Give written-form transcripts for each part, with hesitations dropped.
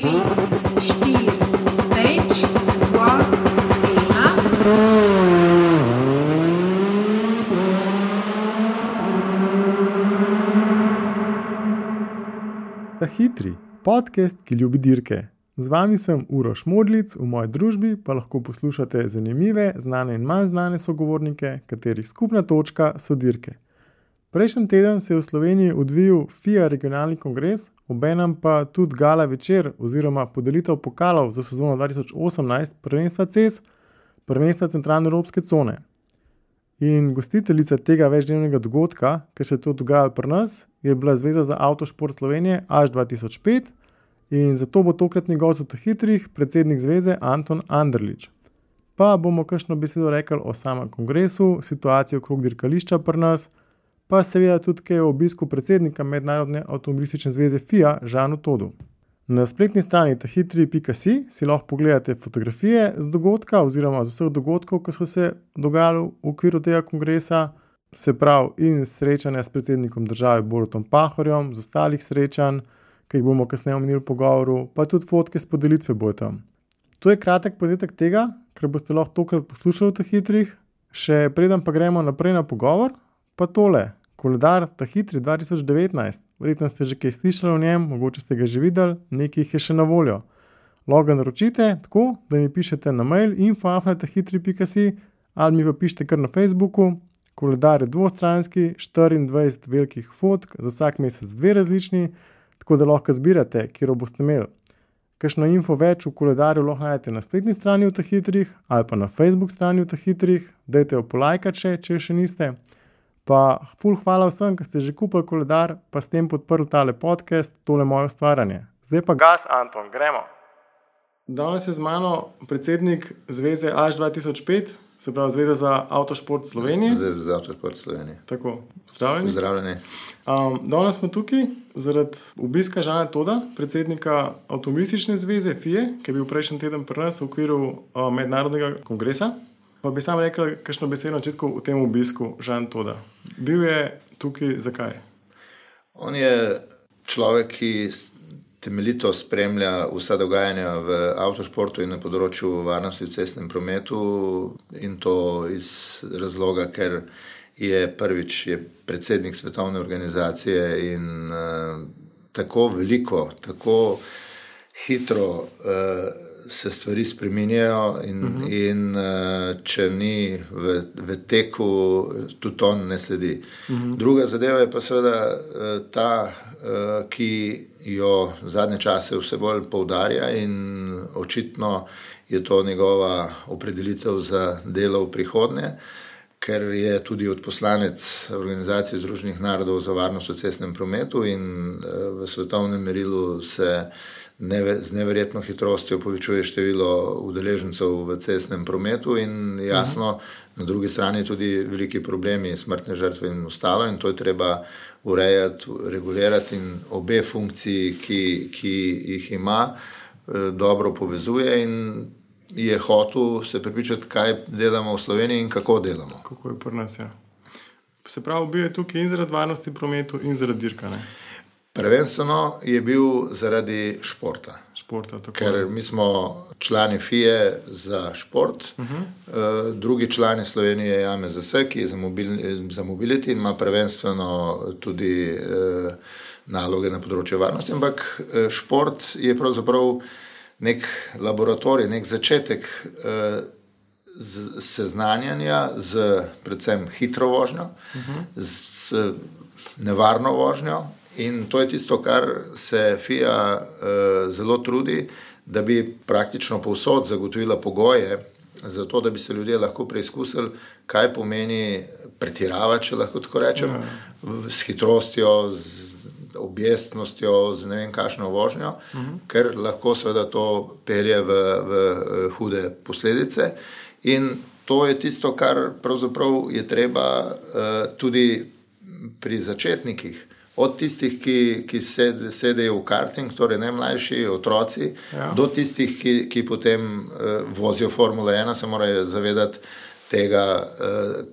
Stage 1. Ta hitri podcast, ki ljubi dirke. Z vami sem Uroš Modlic, v moji družbi pa lahko poslušate zanimive, znane in manj znane sogovornike, katerih skupna točka so dirke. Prejšnji teden se je v Sloveniji odvijal FIA regionalni kongres, obenem pa tudi gala večer oziroma podelitev pokalov za sezono 2018 prvenstva CES, prvenstva centralne evropske cone. In gostiteljica tega večdnevnega dogodka, ker se je to dogajalo pri nas, je bila Zveza za avtošport Slovenije AŠ 2005 in zato bo tokratni gost v hitrih predsednik zveze Anton Anderlič. Pa bomo kakšno besedo rekli o samem kongresu, situaciji okrog dirkališča pri nas, pa seveda tudi kaj o obisku predsednika Mednarodne avtomobilistične zveze FIA Žanu Todu. Na spletni strani tahitri.si si lahko pogledate fotografije z dogodka oziroma z vseh dogodkov, ki so se dogajali v okviru tega kongresa, se pravi in srečanja s predsednikom države Borutom Pahorjem, z ostalih srečanj, ki jih bomo kasneje omenili v pogovoru, pa tudi fotke s podelitve bojo tam. To je kratek povzetek tega, kar boste lahko tokrat poslušali v hitrih, še preden pa gremo naprej na pogovor, pa tole. Koledar Hitri 2019, verjetno ste že kaj slišali o njem, mogoče ste ga že videli, nekaj jih je še na voljo. Lahko ga naročite tako, da mi pišete na mail info@tahitri.si ali mi pa pišete kar na Facebooku. Koledar je dvostranski, 24 velikih fotk, za vsak mesec 2 različni, tako da lahko zbirate, kjer boste imeli. Kakšno info več v koledarju lahko najdete na spletni strani v Hitrih ali pa na Facebook strani v Hitrih, dajte jo polajkati če še niste. Pa ful hvala vsem, ki ste že kupili koledar, pa s tem podprli tale podcast, tole moje ustvarjanje. Zdaj pa gas, Anton, gremo. Danes je z mano predsednik zveze AŠ 2005, se pravi Zveza za avtošport Slovenije. Zveza za avtošport Slovenije. Tako, pozdravljeni. Pozdravljeni. Danes smo tukaj zaradi obiska Žana Toda, predsednika avtomobilistične zveze FIA, ki je bil prejšnji teden pri nas v okviru mednarodnega kongresa. Pa bi sam rekel, kakšno besedo na začetku v tem obisku Žan Toda. Bil je tukaj zakaj? On je človek, ki temeljito spremlja vsa dogajanja v avtošportu in na področju varnosti v cestnem prometu, in to iz razloga, ker je prvič predsednik svetovne organizacije in tako veliko, tako hitro se stvari spreminjajo in če ni v teku, tudi on ne sledi. Druga zadeva je pa seveda ta, ki jo zadnje čase vse bolj poudarja in očitno je to njegova opredelitev za delo v prihodnje, ker je tudi odposlanec Organizacije Združenih narodov za varnost v cestnem prometu in v svetovnem merilu se z neverjetno hitrostjo povečuje število udeležencev v cestnem prometu in jasno, na drugi strani tudi veliki problemi, smrtne žrtve in ostalo, in to je treba urejati, regulirati in obe funkciji, ki jih ima, dobro povezuje in je hotel se prepričati, kaj delamo v Sloveniji in kako delamo. Kako je pri nas, ja. Se pravi, bil je tukaj in zaradi varnosti prometu in zaradi dirka, ne? Prvenstveno je bil zaradi športa. Ker mi smo člani FIA za šport, drugi člani Slovenije je AMZS, ki je za mobility in ima prvenstveno tudi naloge na področju varnosti, ampak šport je pravzaprav nek laboratorij, nek začetek seznanjanja z predvsem hitro vožnjo, z nevarno vožnjo. In to je tisto, kar se FIA zelo trudi, da bi praktično povsod zagotovila pogoje za to, da bi se ljudje lahko preizkusili, kaj pomeni pretiravati, če lahko tako rečem, s hitrostjo, z objestnostjo, z ne vem kakšno vožnjo, ker lahko seveda to pelje v hude posledice. In to je tisto, kar pravzaprav je treba tudi pri začetnikih, od tistih, ki sedejo v karting, torej najmlajši otroci, do tistih, ki potem vozijo Formula 1, se morajo zavedati tega,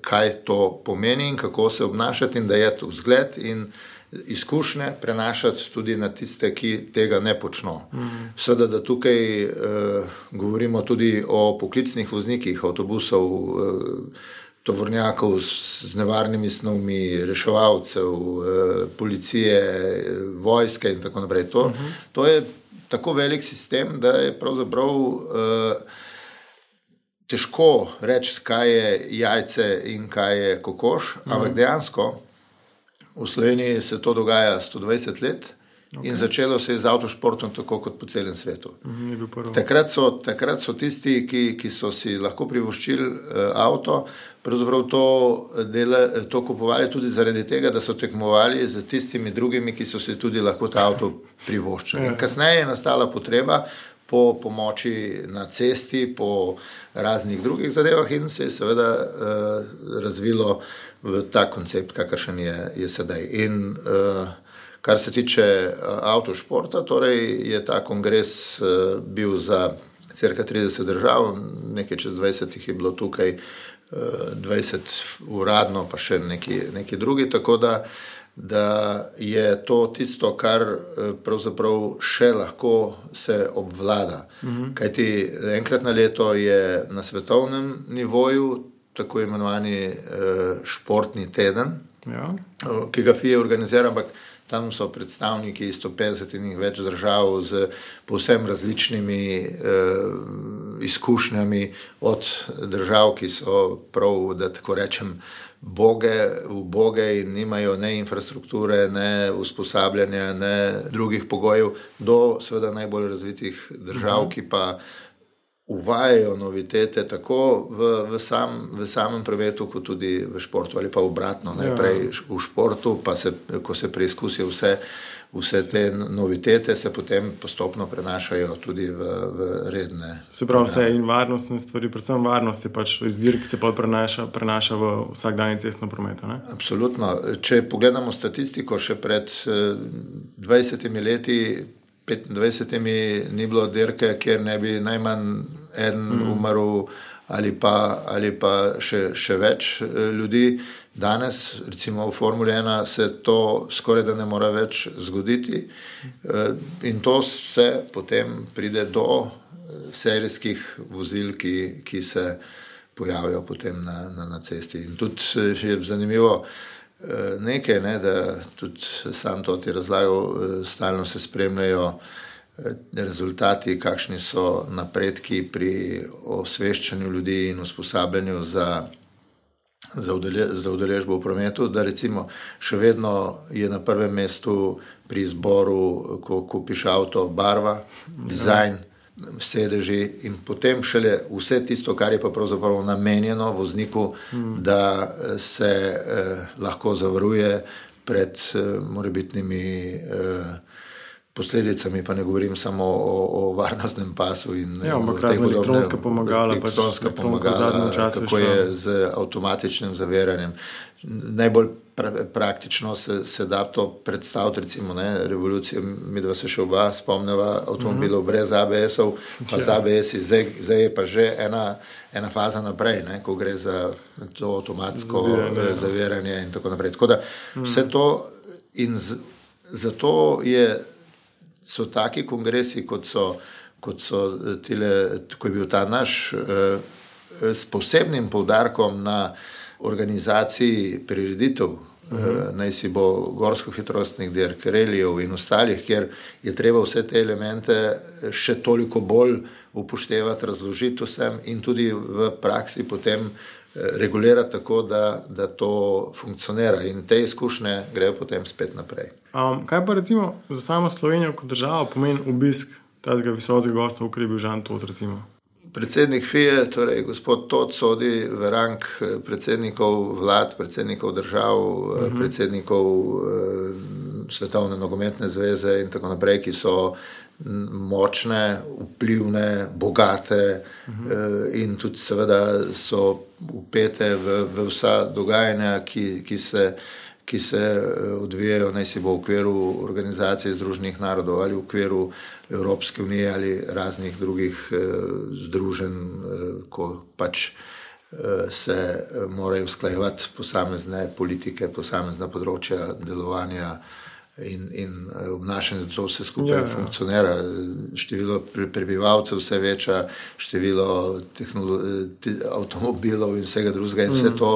kaj to pomeni in kako se obnašati in da je to vzgled in izkušnje prenašati tudi na tiste, ki tega ne počno. Seveda, da tukaj govorimo tudi o poklicnih voznikih avtobusov, tovornjakov z nevarnimi snovmi, reševalcev, policije, vojske in tako naprej. To je tako velik sistem, da je pravzaprav težko reči, kaj je jajce in kaj je kokoš, ampak dejansko v Sloveniji se to dogaja 120 let in začelo se je z avtošportom tako kot po celem svetu. Takrat so tisti, ki so si lahko privoščili avto, pravzaprav to kupovali tudi zaradi tega, da so tekmovali z tistimi drugimi, ki so si tudi lahko ta avto privoščili. Kasneje je nastala potreba po pomoči na cesti, po raznih drugih zadevah in se je seveda razvilo v ta koncept, kakršen je sedaj. In kar se tiče avtošporta, torej je ta kongres bil za cirka 30 držav, nekaj čez 20 jih je bilo tukaj, 20 uradno, pa še neki drugi, tako da je to tisto, kar pravzaprav še lahko se obvlada. Kajti enkrat na leto je na svetovnem nivoju tako imenovani športni teden, ki ga FIA organizira, ampak tam so predstavniki 150 in več držav z povsem različnimi izkušnjami od držav, ki so prav, da tako rečem, uboge in nimajo ne infrastrukture, ne usposabljanja, ne drugih pogojev, do seveda najbolj razvitih držav, ki pa uvajajo novitete tako v samem prometu, kot tudi v športu ali pa obratno. Najprej v športu, pa ko se preizkusijo vse te novitete, se potem postopno prenašajo tudi v redne. Se pravi, vse in varnostne stvari, predvsem varnost je pač iz dirk se pa prenaša v vsakdanji cestno prometu, ne? Absolutno. Če pogledamo statistiko, še pred 20 leti, 25 ni bilo dirke, kjer ne bi najmanj eden umrl ali pa še več ljudi. Danes, recimo v Formuli 1, se to skoraj da ne mora več zgoditi in to se potem pride do serijskih vozil, ki se pojavijo potem na cesti. In tudi je zanimivo nekaj, da tudi sam to ti razlagal, stalno se spremljajo rezultati, kakšni so napredki pri osveščanju ljudi in usposabljanju za udeležbo v prometu, da recimo še vedno je na prvem mestu pri izboru, ko kupiš avto, barva, dizajn, sedeži in potem šele vse tisto, kar je pa pravzaprav namenjeno vozniku, da se lahko zavaruje pred morebitnimi posledicami, pa ne govorim samo o varnostnem pasu in elektronska pomagala, kako je z avtomatičnim zaviranjem. Najbolj praktično se da to predstaviti, recimo, revolucija, midva se še oba spomneva avtomobilov brez ABS-ov, pa z ABS-i, zdaj je pa že ena faza naprej, ko gre za to avtomatsko zaviranje in tako naprej. Tako da vse to in zato so taki kongresi, kot so tile, ko je bil ta naš, s posebnim poudarkom na organizaciji prireditev, naj si bo gorsko-hitrostnih dirk, relijev in ostalih, kjer je treba vse te elemente še toliko bolj upoštevati, razložiti vsem in tudi v praksi potem regulirati tako, da to funkcionira in te izkušnje grejo potem spet naprej. Kaj pa recimo za samo Slovenijo kot državo pomeni obisk tega visokega gosta, v bil Žan Tot, recimo? Predsednik FIA, torej gospod Tot, sodi v rang predsednikov vlad, predsednikov držav, predsednikov Svetovne nogometne zveze in tako naprej, ki so močne, vplivne, bogate in tudi seveda so vpete v vsa dogajanja, ki se odvijajo, naj si bo v okviru Organizacije Združenih narodov ali v okviru Evropske unije ali raznih drugih združenj, ko pač se morajo usklajevati posamezne politike, posamezna področja delovanja in obnašanje, da to vse skupaj funkcionira. Število prebivalcev vse veča, število avtomobilov in vsega drugega in vse to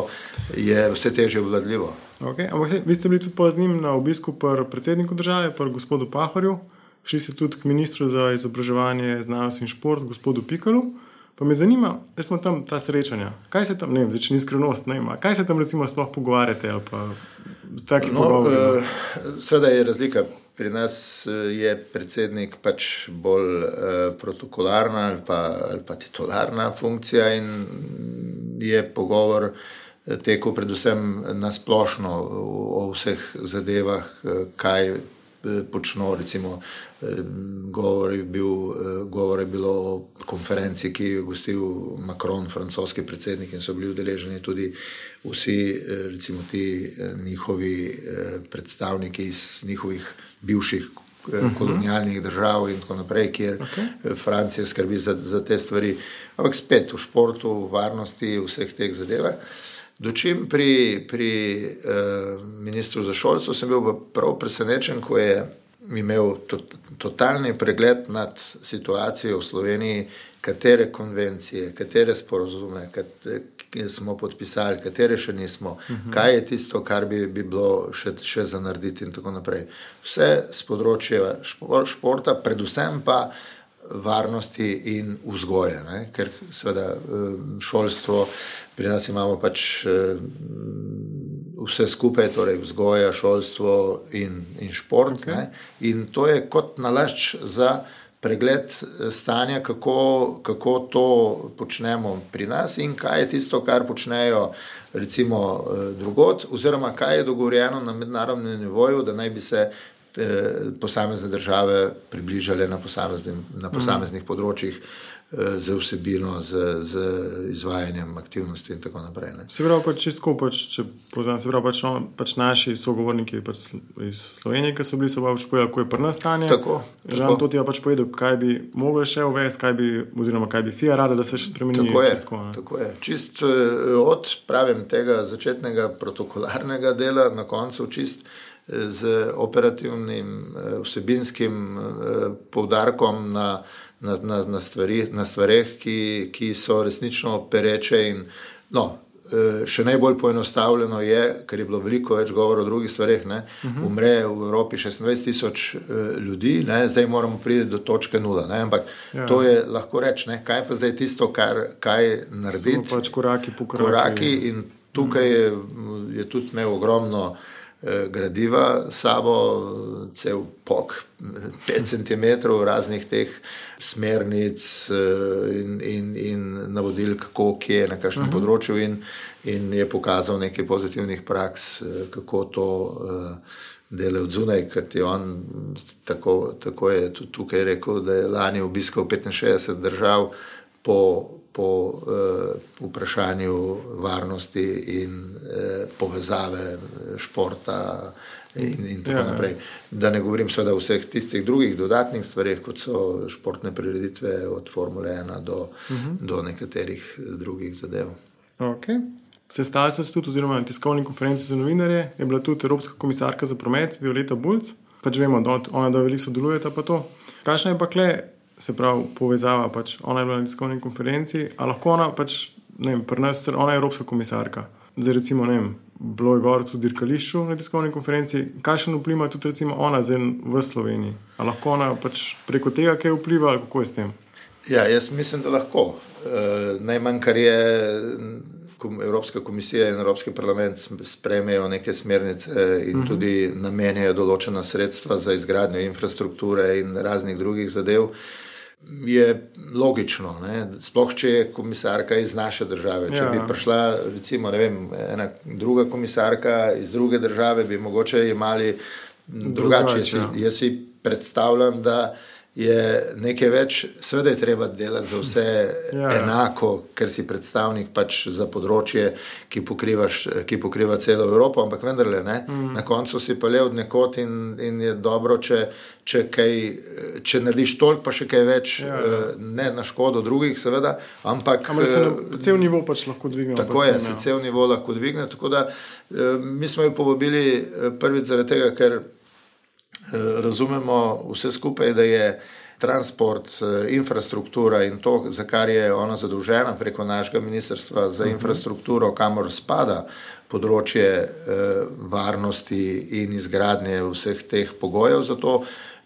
je vse težje obvladljivo. Okay. Ampak vi ste bili tudi z njim na obisku pri predsedniku države, pri gospodu Pahorju, šli ste tudi k ministru za izobraževanje, znanost in šport, gospodu Pikalu. Pa me zanima, da smo tam ta srečanja. Kaj se tam, ne vem, začne skrivnost, ne vem, kaj se tam recimo sploh pogovarjate ali pa taki pogovori? Seveda je razlika. Pri nas je predsednik pač bolj protokolarna ali pa titularna funkcija in je pogovor tekel predvsem na splošno o vseh zadevah, kaj počno, recimo govor je bilo o konferenci, ki je gostil Macron, francoski predsednik, in so bili udeleženi tudi vsi, recimo ti njihovi predstavniki iz njihovih bivših kolonialnih držav in tako naprej, kjer Francija skrbi za te stvari. Ampak spet v športu, v varnosti, v vseh teh zadevah. Dočim pri ministru za šolstvo sem bil prav presenečen, ko je imel totalni pregled nad situacijo v Sloveniji, katere konvencije, katere sporozume, katere smo podpisali, katere še nismo, kaj je tisto, kar bi bilo še za narediti in tako naprej. Vse z področja športa, predvsem pa varnosti in vzgoje, ne? Ker seveda šolstvo, pri nas imamo pač vse skupaj, torej vzgoja, šolstvo in šport, ne? In to je kot nalašč za pregled stanja, kako to počnemo pri nas in kaj je tisto, kar počnejo recimo drugod, oziroma kaj je dogovorjeno na mednarodnem nivoju, da naj bi se posamezne države približale na posameznih področjih z vsebino, z izvajanjem aktivnosti in tako naprej. Ne. Se pravi pač čistko, če poznam, se pravi pač naši sogovorniki iz Slovenije, ki so bili, so pač povedali, kako je pri nas stanje. Tako. Žan to ti je pač povedal, kaj bi mogli še uvesti, oziroma kaj bi FIA rada, da se še spremeni. Tako je. Čist od, pravim, tega začetnega protokolarnega dela, na koncu čist z operativnim vsebinskim poudarkom na stvareh, ki so resnično pereče in še najbolj poenostavljeno je, ker je bilo veliko več govora o drugih stvareh, umre v Evropi 26,000 ljudi, ne? Zdaj moramo priti do točke 0, ne? Ampak to je lahko reči, ne? Kaj pa zdaj tisto, kaj narediti? Samo pač koraki in tukaj je tudi imel ogromno gradiva sabo, cel pok 5 cm raznih teh smernic in navodil, kako, kje, na kakšnem področju in je pokazal nekaj pozitivnih praks, kako to dela od zunaj, ker ti on tako je tudi tukaj rekel, da je lani obiskal 65 držav po vprašanju varnosti in povezave športa in tako naprej. Da ne govorim seveda o vseh tistih drugih dodatnih stvareh, kot so športne prireditve od Formule 1 do nekaterih drugih zadev. Okay. Sestali so se tudi, oziroma na tiskovni konferenci za novinarje, je bila tudi Evropska komisarka za promet Violeta Bulc. Pač vemo, da ona veliko sodelujeta pa to. Kakšna je pa kle, se pravi, povezava, pač ona je bila na tiskovni konferenci, a lahko ona pač, ne vem, pri nas, ona je Evropska komisarka. Zdaj recimo, ne vem, bilo je govor tudi dirkališču na tiskovni konferenci, kakšen vpliv ima tudi recimo ona zdaj v Sloveniji? A lahko ona pač preko tega kaj vpliva, ali kako je s tem? Ja, jaz mislim, da lahko. Najmanj, kar je Evropska komisija in Evropski parlament sprejmejo neke smernice in tudi namenjajo določena sredstva za izgradnjo infrastrukture in raznih drugih zadev, je logično, ne? Sploh če je komisarka iz naše države. Če bi prišla, recimo, ne vem, ena druga komisarka iz druge države, bi mogoče imeli drugače. Jaz si predstavljam, da je nekaj več, seveda je treba delati za vse enako, ker si predstavnik pač za področje, ki pokriva celo Evropo, ampak vendarle, ne, na koncu si pa le od nekod in je dobro, če narediš toliko, pa še kaj več, ne na škodo drugih, seveda, ampak se cel nivo pač lahko dvigne. Tako je, se cel nivo lahko dvigne, tako da mi smo jo povabili prvič zaradi tega, ker razumemo vse skupaj, da je transport, infrastruktura in to, za kar je ona zadolžena preko našega ministrstva za infrastrukturo, kamor spada področje varnosti in izgradnje vseh teh pogojev za to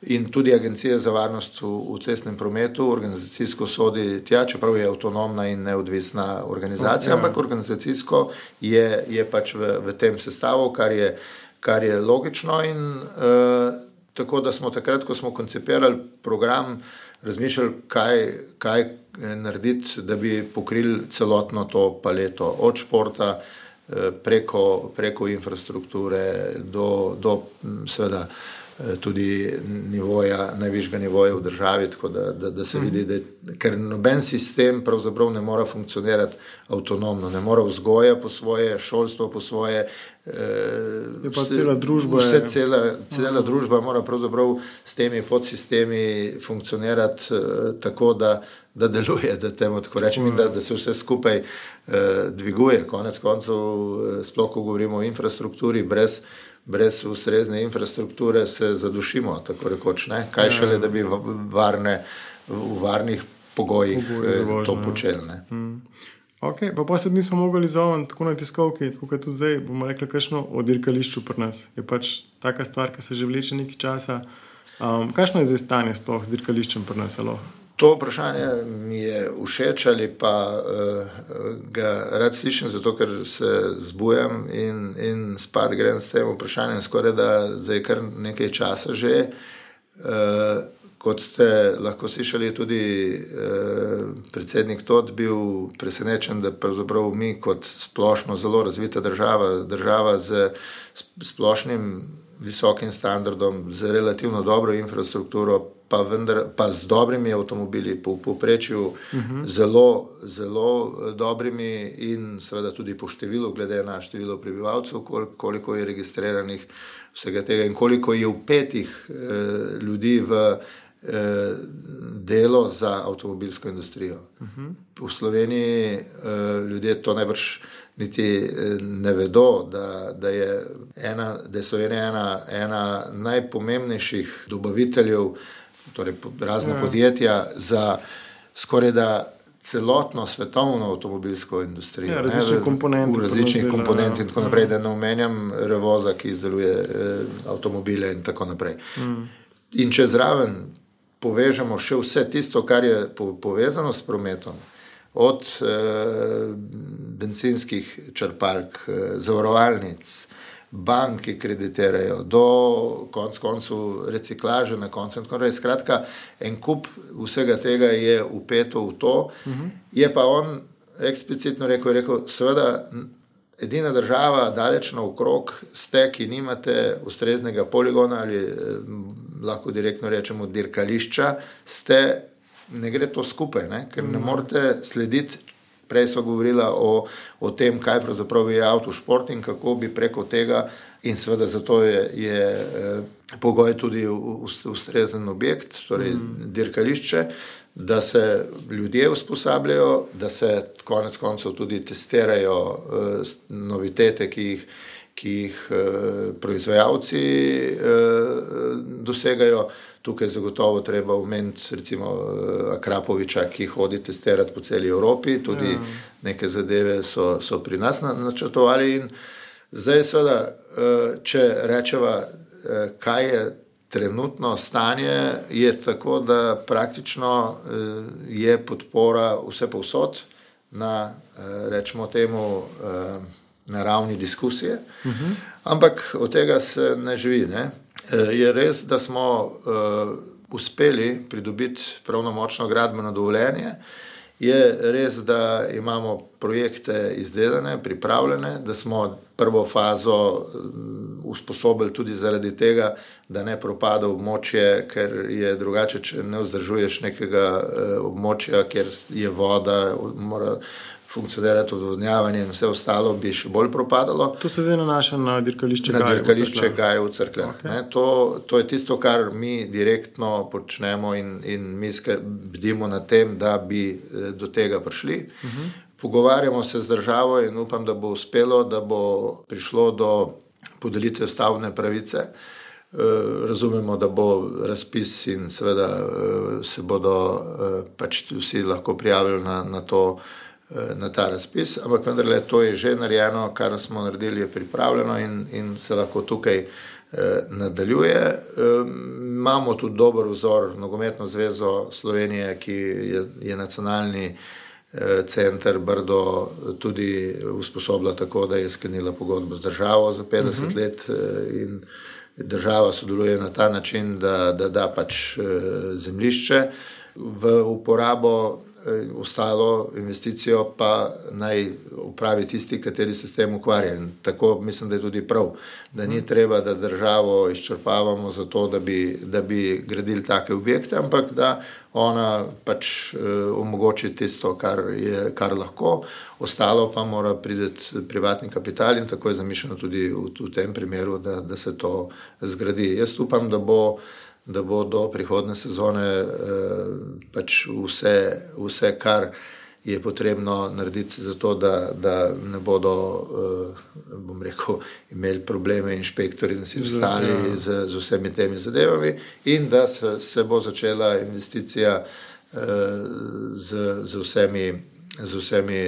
in tudi Agencija za varnost v cestnem prometu organizacijsko sodi tja, čeprav je avtonomna in neodvisna organizacija, ampak organizacijsko je pač v tem sestavu, kar je logično in tako da smo takrat, ko smo koncipirali program, razmišljali, kaj narediti, da bi pokrili celotno to paleto od športa preko infrastrukture do seveda tudi nivoja, najvišjega nivoja v državi, tako da se vidi, ker noben sistem pravzaprav ne mora funkcionirati avtonomno, ne mora vzgoja po svoje, šolstvo po svoje, je pa cela družba. Cela družba mora pravzaprav s temi podsistemi funkcionirati tako, da deluje, da temu tako rečem in da se vse skupaj dviguje. Konec koncev, sploh ko govorimo o infrastrukturi, brez ustrezne infrastrukture se zadušimo, tako rekoč, ne? Kaj šele, da bi v varnih pogojih to počeli, ne? Ok, pa se nismo mogli zovem tako na tiskovki, tako kot tudi zdaj, bomo rekli kakšno o dirkališču pri nas. Je pač taka stvar, ki se že vleče nekaj časa. Kakšno je zdaj stanje sploh z dirkališčem pri nas, alo? To vprašanje mi je všeč ali pa ga rad slišim, zato ker se zbujam in spat grem s tem vprašanjem skoraj da zdaj kar nekaj časa že. Kot ste lahko slišali, tudi predsednik Tot bil presenečen, da pravzaprav mi kot splošno zelo razvita država z splošnim visokim standardom, z relativno dobro infrastrukturo, pa z dobrimi avtomobili, po povprečju zelo, zelo dobrimi in seveda tudi po številu, glede na število prebivalcev, koliko je registriranih vsega tega in koliko je vpetih ljudi v delo za avtomobilsko industrijo. V Sloveniji ljudje to najbrž niti ne vedo, da je Slovenija ena najpomembnejših dobaviteljev, torej razne podjetja za skoraj da celotno svetovno avtomobilsko industrijo. Različnih komponent. V različnih komponent in tako naprej, da ne omenjam Revoza, ki izdeluje avtomobile in tako naprej. In če zraven povežemo še vse tisto, kar je povezano s prometom, od bencinskih črpalk, zavarovalnic, bank, ki kreditirajo, do koncu reciklaže na koncu. Skratka, en kup vsega tega je vpeto v to. Je pa on eksplicitno rekel, seveda edina država daleč naokrog ste, ki nimate ustreznega poligona ali lahko direktno rečemo dirkališča, ne gre to skupaj, ne? Ker ne morete slediti. Prej so govorila o tem, kaj pravzaprav je avtošport in kako bi preko tega, in seveda zato je pogoj tudi ustrezen objekt, torej dirkališče, da se ljudje usposabljajo, da se konec koncev tudi testirajo novitete, ki jih proizvajalci dosegajo. Tukaj zagotovo treba omeniti recimo Akrapoviča, ki hodi testirati po celi Evropi, tudi neke zadeve so pri nas načrtovali in zdaj seveda, če rečeva, kaj je trenutno stanje, je tako, da praktično je podpora vse povsod na, rečemo temu, na ravni diskusije, ampak od tega se ne živi, ne? Je res, da smo uspeli pridobiti pravnomočno gradbeno dovoljenje, je res, da imamo projekte izdelane, pripravljene, da smo prvo fazo usposobili tudi zaradi tega, da ne propada območje, ker je drugače, če ne vzdržuješ nekega območja, kjer je voda, mora funkcionirati odvodnjavanje in vse ostalo, bi še bolj propadalo. To se zdaj nanaša na dirkališče Gaje. Na dirkališče Gaje v Cerkljah. Okay. To je tisto, kar mi direktno počnemo in mi bdimo na tem, da bi do tega prišli. Pogovarjamo se z državo in upam, da bo uspelo, da bo prišlo do podelitve stavbne pravice. Razumemo, da bo razpis in seveda se bodo pač vsi lahko prijavili na ta razpis, ampak vendarle to je že narejeno, kar smo naredili, je pripravljeno in se lahko tukaj nadaljuje. Imamo tudi dober vzor, Nogometno zvezo Slovenije, ki je nacionalni center Brdo tudi usposobila tako, da je sklenila pogodbo z državo za 50 let in država sodeluje na ta način, da pač zemljišče v uporabo, ostalo investicijo pa naj upravi tisti, kateri se s tem ukvarja. In tako mislim, da je tudi prav, da ni treba, da državo izčrpavamo za to, da bi gradili take objekte, ampak da ona pač omogoči tisto, kar lahko, ostalo pa mora priti privatni kapital in tako je zamišljeno tudi v tem primeru, da se to zgradi. Jaz upam, da bo do prihodne sezone pač vse, kar je potrebno narediti za to, da ne bodo, bom rekel, imeli probleme inšpektori in vsi ostali z vsemi temi zadevami in da se bo začela investicija z vsemi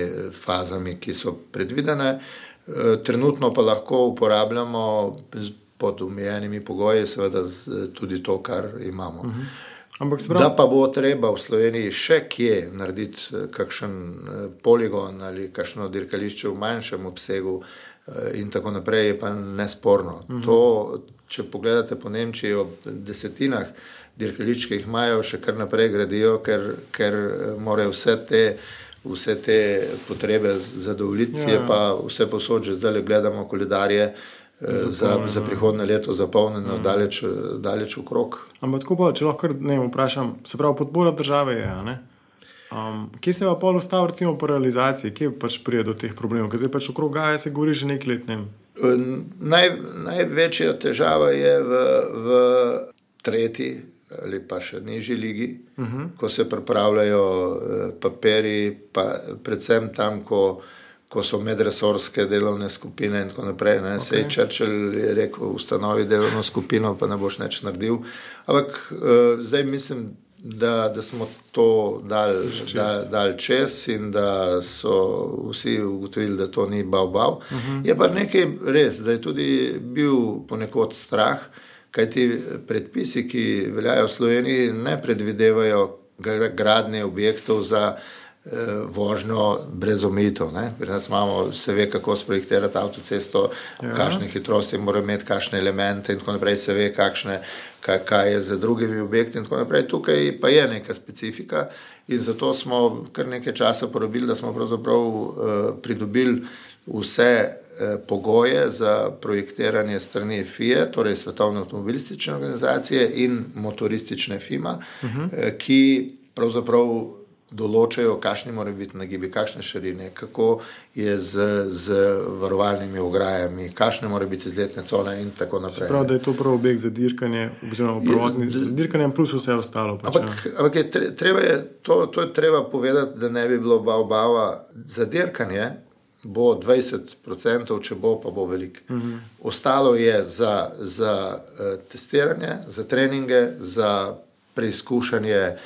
fazami, ki so predvidene. Trenutno pa lahko uporabljamo pod omejenimi pogoji, seveda tudi to, kar imamo. Da pa bo treba v Sloveniji še kje narediti kakšen poligon ali kakšno dirkališče v manjšem obsegu in tako naprej, je pa nesporno. To, če pogledate po Nemčiji, ob desetinah dirkališč, ki jih imajo, še kar naprej gradijo, ker morajo vse te potrebe zadovoljiti, je pa vse posod, že zdaj gledamo koledarje, za prihodne leto zapolnjeno daleč okrog. Ampak tako pa, če lahko vprašam, se pravi, podpora države je, ne? Kje se pa pol ustav, recimo po realizaciji, kje pač prije do teh problemov, ker zdaj pač okrog Gaje se govori že nekaj let, Največja težava je v tretji ali pa še nižji ligi, ko se pripravljajo papiri, pa predvsem tam, ko so medresorske delovne skupine in tako naprej. Sej Churchill je rekel, ustanovi delovno skupino, pa ne boš nič naredil. Ampak zdaj mislim, da smo to dali čez in da so vsi ugotovili, da to ni bav. Je pa nekaj res, da je tudi bil ponekod strah, kajti predpisi, ki veljajo v Sloveniji, ne predvidevajo gradnje objektov za vožnjo brez omejitev. Pri nas se ve, kako sprojektirati avtocesto, kakšne hitrosti mora imeti, kakšne elemente in tako naprej, se ve, kaj je za drugimi objekti in tako naprej. Tukaj pa je neka specifika in zato smo kar nekaj časa porabili, da smo pravzaprav pridobili vse pogoje za projektiranje strani FIA, torej Svetovne avtomobilistične organizacije in motoristične FIMA, ki pravzaprav določajo, kakšni morajo biti nagibi, kakšne širine, kako je z varovalnimi ograjami, kakšne morajo biti izletne cone in tako naprej. Se pravi, da je to prav objekt za dirkanje, oziroma za dirkanje plus vse ostalo. Ampak to je treba povedati, da ne bi bilo bava. Za dirkanje bo 20%, če bo, pa bo veliko. Ostalo je za testiranje, za treninge, za preizkušanje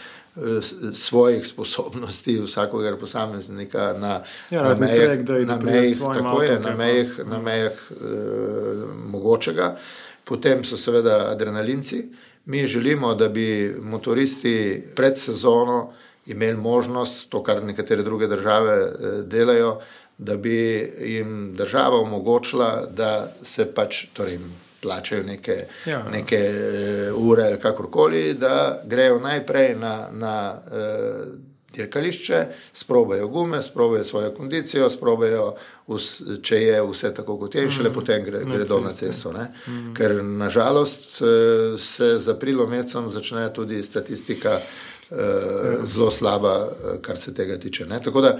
svojih sposobnosti vsakogar posameznika na mejah mogočega. Potem so seveda adrenalinci. Mi želimo, da bi motoristi pred sezono imeli možnost, to kar nekatere druge države delajo, da bi jim država omogočila, da se pač, torej plačajo neke ure ali kakorkoli, da grejo najprej na dirkališče, sprobajo gume, sprobajo svojo kondicijo, sprobajo, če je vse tako kot je, in šele potem gredo na cesto. Ne? Ker nažalost se z aprilom mesecem začne tudi statistika zelo slaba, kar se tega tiče. Ne? Tako da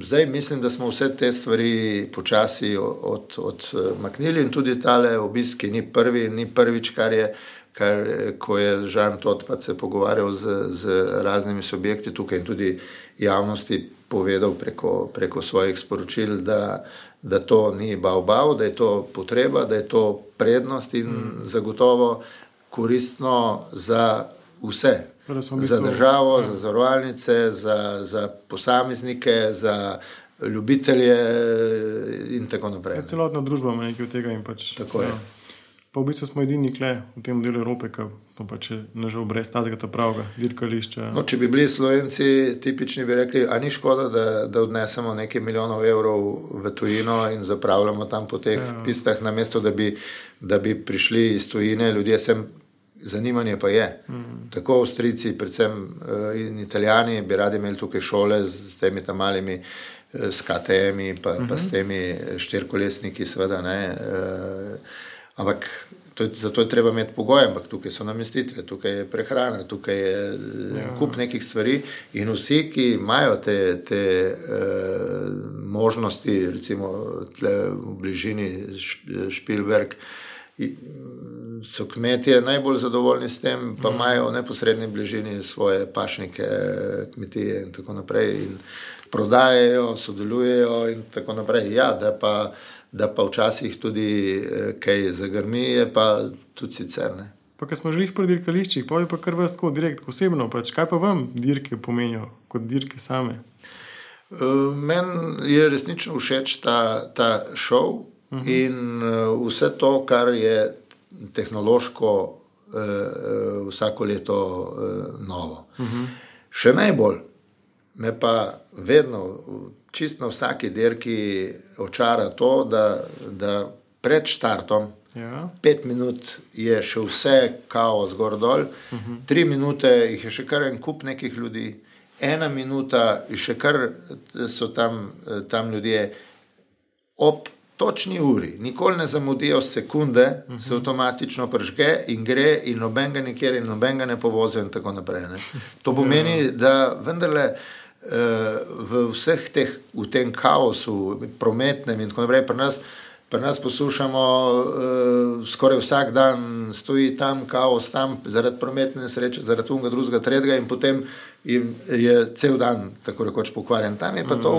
zdaj mislim, da smo vse te stvari počasi odmaknili in tudi tale obisk ni prvič, ko je Žan Totpat se pogovarjal z raznimi subjekti tukaj in tudi javnosti povedal preko svojih sporočil, da to ni bav, da je to potreba, da je to prednost in zagotovo koristno za vse. Za državo, za zavarovalnice, za posameznike, za ljubitelje in tako naprej. Celotna družba ima nekaj od tega in pač. Tako je. Pa v bistvu smo edini kle v tem delu Evrope, ki pač nažal brez tazga pravega dirkališča. No, če bi bili Slovenci tipični, bi rekli, a ni škoda, da odnesemo nekaj milijonov evrov v tujino in zapravljamo tam po teh pistah, namesto da bi prišli iz tujine, ljudje sem. Zanimanje pa je. Tako Avstrijci, predvsem in Italijani bi radi imeli tukaj šole s temi tam malimi s KTM-i pa s temi štirkolesniki seveda, ne. Ampak zato je treba imeti pogoje, ampak tukaj so namestitve, tukaj je prehrana, tukaj je kup nekih stvari in vsi, ki imajo te možnosti, recimo tle v bližini Špilberg, so kmetje najbolj zadovoljni s tem, pa imajo v neposredni bližini svoje pašnike, kmetije in tako naprej in prodajajo, sodelujejo in tako naprej. Ja, da pa včasih tudi kaj zagrmi, je pa tudi sicer, ne. Pa ko smo želih pri dirkališčih, pa je pa kar vas tako direkt, osebno, pač kaj pa vam dirke pomenijo kot dirke same? Meni je resnično všeč ta šov, in vse to, kar je tehnološko vsako leto novo. Še najbolj me pa vedno, čisto na vsaki dirki očara to, da pred štartom 5 minut je še vse kaos gor dol, 3 minute jih je še kar en kup nekih ljudi, 1 minuta še kar so tam ljudje ob točni uri, nikoli ne zamudijo sekunde, se avtomatično pržge in gre in nobenega nikjer in nobenega ne povozijo in tako naprej. Ne. To pomeni, da vendarle v vseh teh, v tem kaosu prometnem in tako naprej, pri nas poslušamo skoraj vsak dan stoji tam kaos, tam zaradi prometne nesreče, zaradi unga, drugega, tretjega in potem je cel dan tako rekoč pokvarjen. Tam je pa to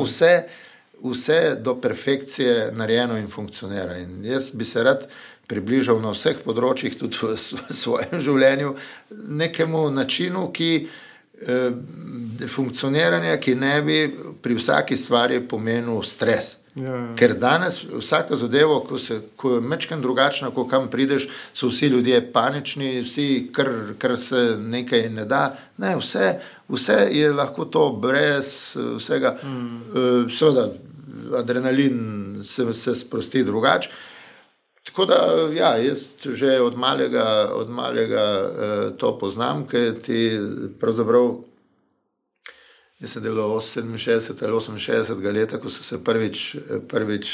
vse do perfekcije narejeno in funkcionira. In jaz bi se rad približal na vseh področjih, tudi v svojem življenju, nekemu načinu, funkcioniranja, ki ne bi pri vsaki stvari pomenil stres. Ker danes vsaka zadeva, ko je mečken drugačna, ko kam prideš, so vsi ljudje panični, vsi, kar se nekaj ne da. Ne, vse je lahko to brez vsega. Seveda, adrenalin se sprosti drugače. Tako da, ja, jaz že od malega to poznam, ker ti pravzaprav, jaz sem delal 67 ali 68 leta, ko so se prvič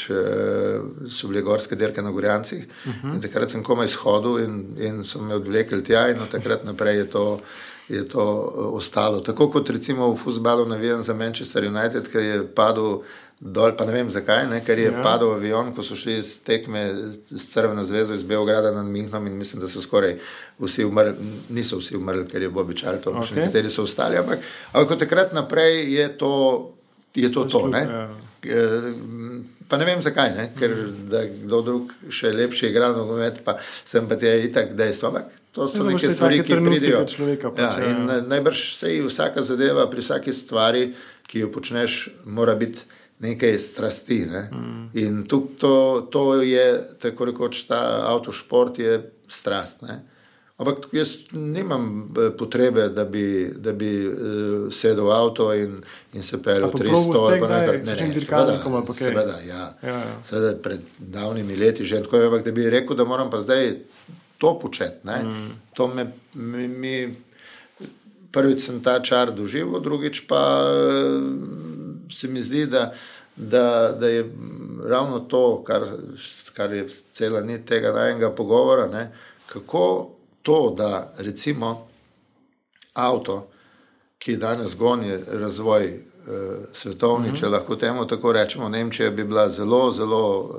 so bile gorske dirke na Gorjancih in takrat sem komaj shodil in so me odvlekli tja in od takrat naprej je to ostalo. Tako kot recimo v fuzbalu navijam za Manchester United, ker je padel dol, pa ne vem zakaj, ne, ker je padel avion, ko so šli z tekme s Crveno zvezo iz Beograda nad Münchenom in mislim, da so skoraj vsi umrli, niso vsi umrli, ker je Bobby Charlton, še nekateri so ostali, ampak od takrat naprej je to, ne. Pa ne vem zakaj, ne, ker da kdo drug še lepši igra nogomet, pa sem pa tja itak dejstvo, ampak to so neke stvari, ki pridijo. In najbrž sej vsaka zadeva pri vsaki stvari, ki jo počneš, mora biti nekaj strasti, ne. In to je, tako rekoč, ta avtošport je strast, ne. Ampak jaz nimam potrebe, da bi sedel v avto in se peljal 300 ali pa nekaj. Seveda, ja. Seveda pred davnimi leti že tako, ampak da bi rekel, da moram pa zdaj to početi, ne. To mi prvič sem ta čar doživel, drugič pa se mi zdi, da je ravno to, kar je cela nit tega najnega pogovora, ne, kako to, da recimo avto, ki danes goni razvoj svetovni, če lahko temu tako rečemo, Nemčija bi bila zelo, zelo,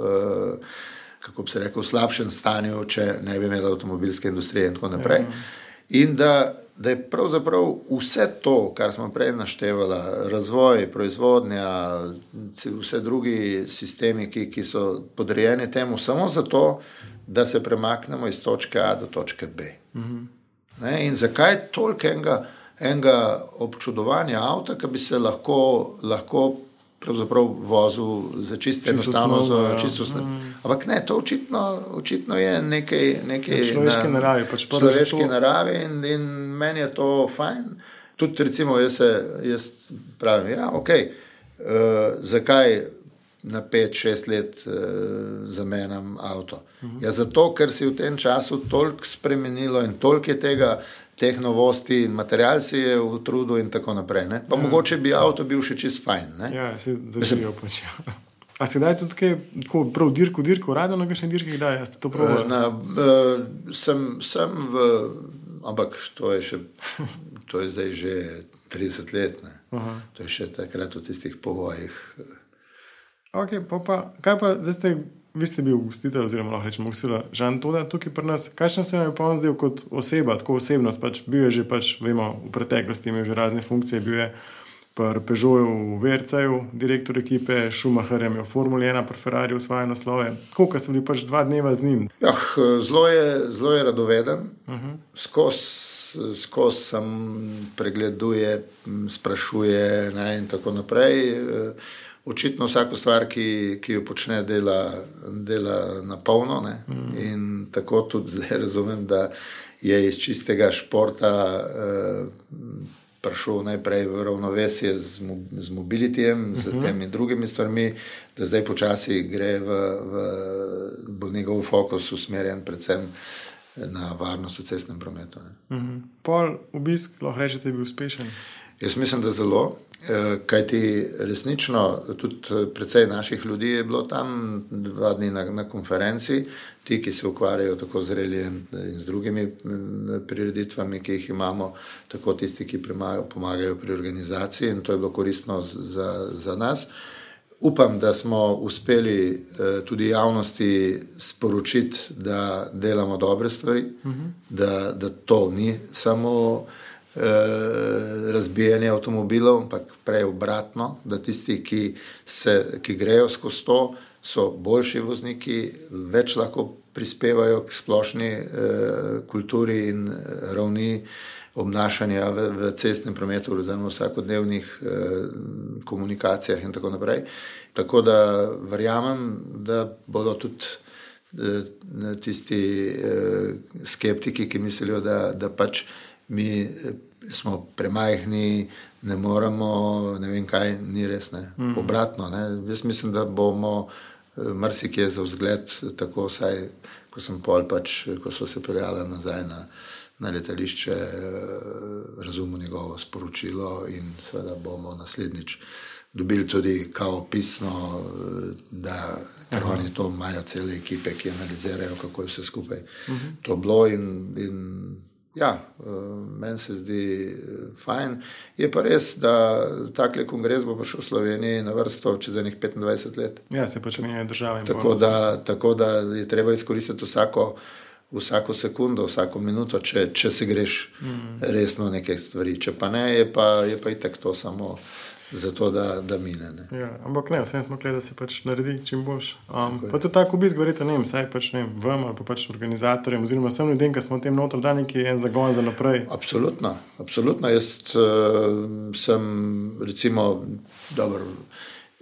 kako bi se rekel, v slabšem stanju, če ne bi imela avtomobilske industrije in tako naprej. In da je pravzaprav vse to, kar smo prej naštevala, razvoj, proizvodnja, vse drugi sistemi, ki so podrejeni temu, samo zato, da se premaknemo iz točke A do točke B. Ne? In zakaj toliko enega občudovanja avta, ki bi se lahko pravzaprav vozil za čisto enostavno, za čisto ampak ne, to očitno je nekaj človeške naravi, človeške naravi in meni je to fajn. Tudi recimo jaz pravim, ja, okej, zakaj na 5-6 let zamenjam avto? Ja, zato, ker si v tem času toliko spremenilo in toliko je teh novosti in material si je v trudu in tako naprej. Ne? Pa mogoče bi avto bil še čist fajn. Ne? Ja, si držijo pač. A si daj tudi kaj, tako prav dirko, rado na kakšne dirke kdaj? Ste to probali? Sem ampak to je zdaj že 30 let. Ne? To je še takrat v tistih povojih. Ok, kaj pa, vi ste bil gostitelj, oziroma lahko rečemo gostitelj Žan Toda tukaj pri nas. Kakšen se vam je pa on zdel kot oseba, tako osebnost? Pač bil je že, vemo, v preteklosti imel že razne funkcije, bil je pri Peugeotu v VRC-ju, direktor ekipe, Schumacherjem je v Formuli 1, pri Ferrariju osvaja naslove. Koliko ste bili pač 2 dneva z njim? Ja, zelo je radoveden, skozi sam pregleduje, sprašuje, ne, in tako naprej. Očitno vsako stvar, ki jo počne, dela na polno, ne? In tako tudi zdaj razumem, da je iz čistega športa prišel najprej v ravnovesje z mobilitijem, z temi drugimi stvarmi, da zdaj počasi gre bo njegov fokus usmerjen predvsem na varnost v cestnem prometu. Pol obisk, lahko rečete, je bil uspešen? Jaz mislim, da zelo, kajti resnično tudi precej naših ljudi je bilo tam 2 dni na konferenci, ti, ki se ukvarjajo tako z relijem in z drugimi prireditvami, ki jih imamo, tako tisti, ki pomagajo pri organizaciji, in to je bilo koristno za nas. Upam, da smo uspeli tudi javnosti sporočiti, da delamo dobre stvari, da to ni samo razbijanje avtomobilov, ampak prej obratno, da tisti, ki grejo skozi to, so boljši vozniki, več lahko prispevajo k splošni kulturi in ravni obnašanja v cestnem prometu, oziroma v vsakodnevnih komunikacijah in tako naprej. Tako da verjamem, da bodo tudi tisti skeptiki, ki mislijo, da pač mi smo premajhni, ne moremo, ne vem kaj, ni res, ne. Obratno, ne. Jaz mislim, da bomo marsikje za vzgled, tako vsaj, ko so se peljali nazaj na letališče, razumel njegovo sporočilo in seveda bomo naslednjič dobili tudi kao pisno, da ker oni to imajo cele ekipe, ki analizirajo, kako je vse skupaj to bilo in ja, meni se zdi fajn. Je pa res, da takle kongres bo prišel v Sloveniji na vrsto čez enih 25 let. Ja, se pač menjajo države. Tako da je treba izkoristiti vsako sekundo, vsako minuto, če se greš resno neke stvari. Če pa ne, je pa itak to samo zato, da mine. Ne. Ja, ampak ne, vsem smo gledali, da se pač naredi čim boljš. Pa tudi tako obisk, govorite, ne vem, saj pač ne vem, vam ali pa pač organizatorjem, oziroma vsem ljudem, ki smo v tem noter, da neki en zagon za naprej. Absolutno. Jaz sem recimo, dobro,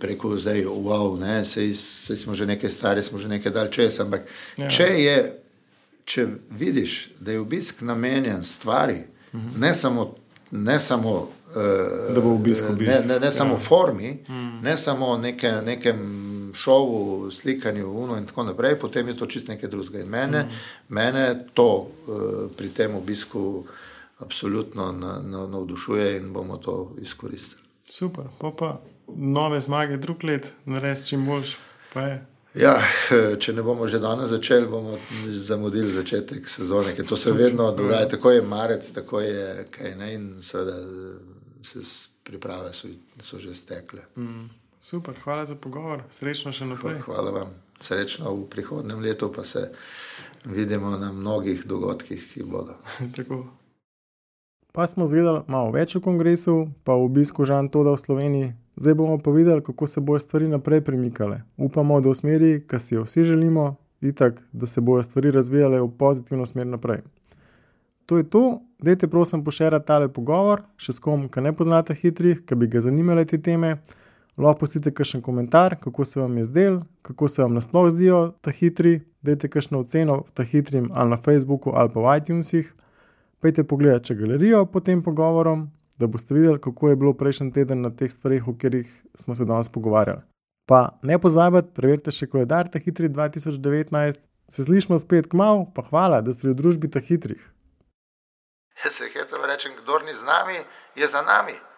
rekel zdaj, wow, ne, sej smo že nekaj stari, smo že nekaj dal čez, ampak če vidiš, da je obisk namenjen stvari, ne samo da bo obisk. Ne samo formi, ne samo nekem šovu, slikanju in tako naprej, potem je to čist nekaj drugega. In mene to pri tem obisku absolutno navdušuje in bomo to izkoristili. Super, pa nove zmage drug let, narediti čim boljš, pa je. Ja, če ne bomo že danes začeli, bomo zamudili začetek sezone, ker to se vedno dogaja, tako je marec, tako je kaj ne, in seveda se priprave so že stekle. Super, hvala za pogovor, srečno še naprej. Hvala vam, srečno v prihodnem letu, pa se vidimo na mnogih dogodkih, ki bodo. Tako. Pa smo zvedeli malo več o kongresu, pa o obisku Jean Toda v Sloveniji. Zdaj bomo pa videli, kako se bojo stvari naprej premikale. Upamo, da v smeri, ki si jo vsi želimo, itak, da se bojo stvari razvijale v pozitivno smer naprej. To je to, dajte prosim pošerati tale pogovor, še s kom, ki ne poznate hitrih, ki bi ga zanimale te teme. Lahko pustite kakšen komentar, kako se vam je zdel, kako se vam nasploh zdijo ta hitri, dajte kakšno oceno ta hitrim ali na Facebooku ali pa v iTunesih. Pejte pogledati galerijo pod tem pogovorom, da boste videli, kako je bilo prejšnji teden na teh stvareh, o katerih smo se danes pogovarjali. Pa ne pozabite, preverite še koledar ta hitri 2019. Se slišimo spet kmalu, pa hvala, da ste v družbi ta hitrih. Jaz se hecam rečem, kdor ni z nami, je za nami.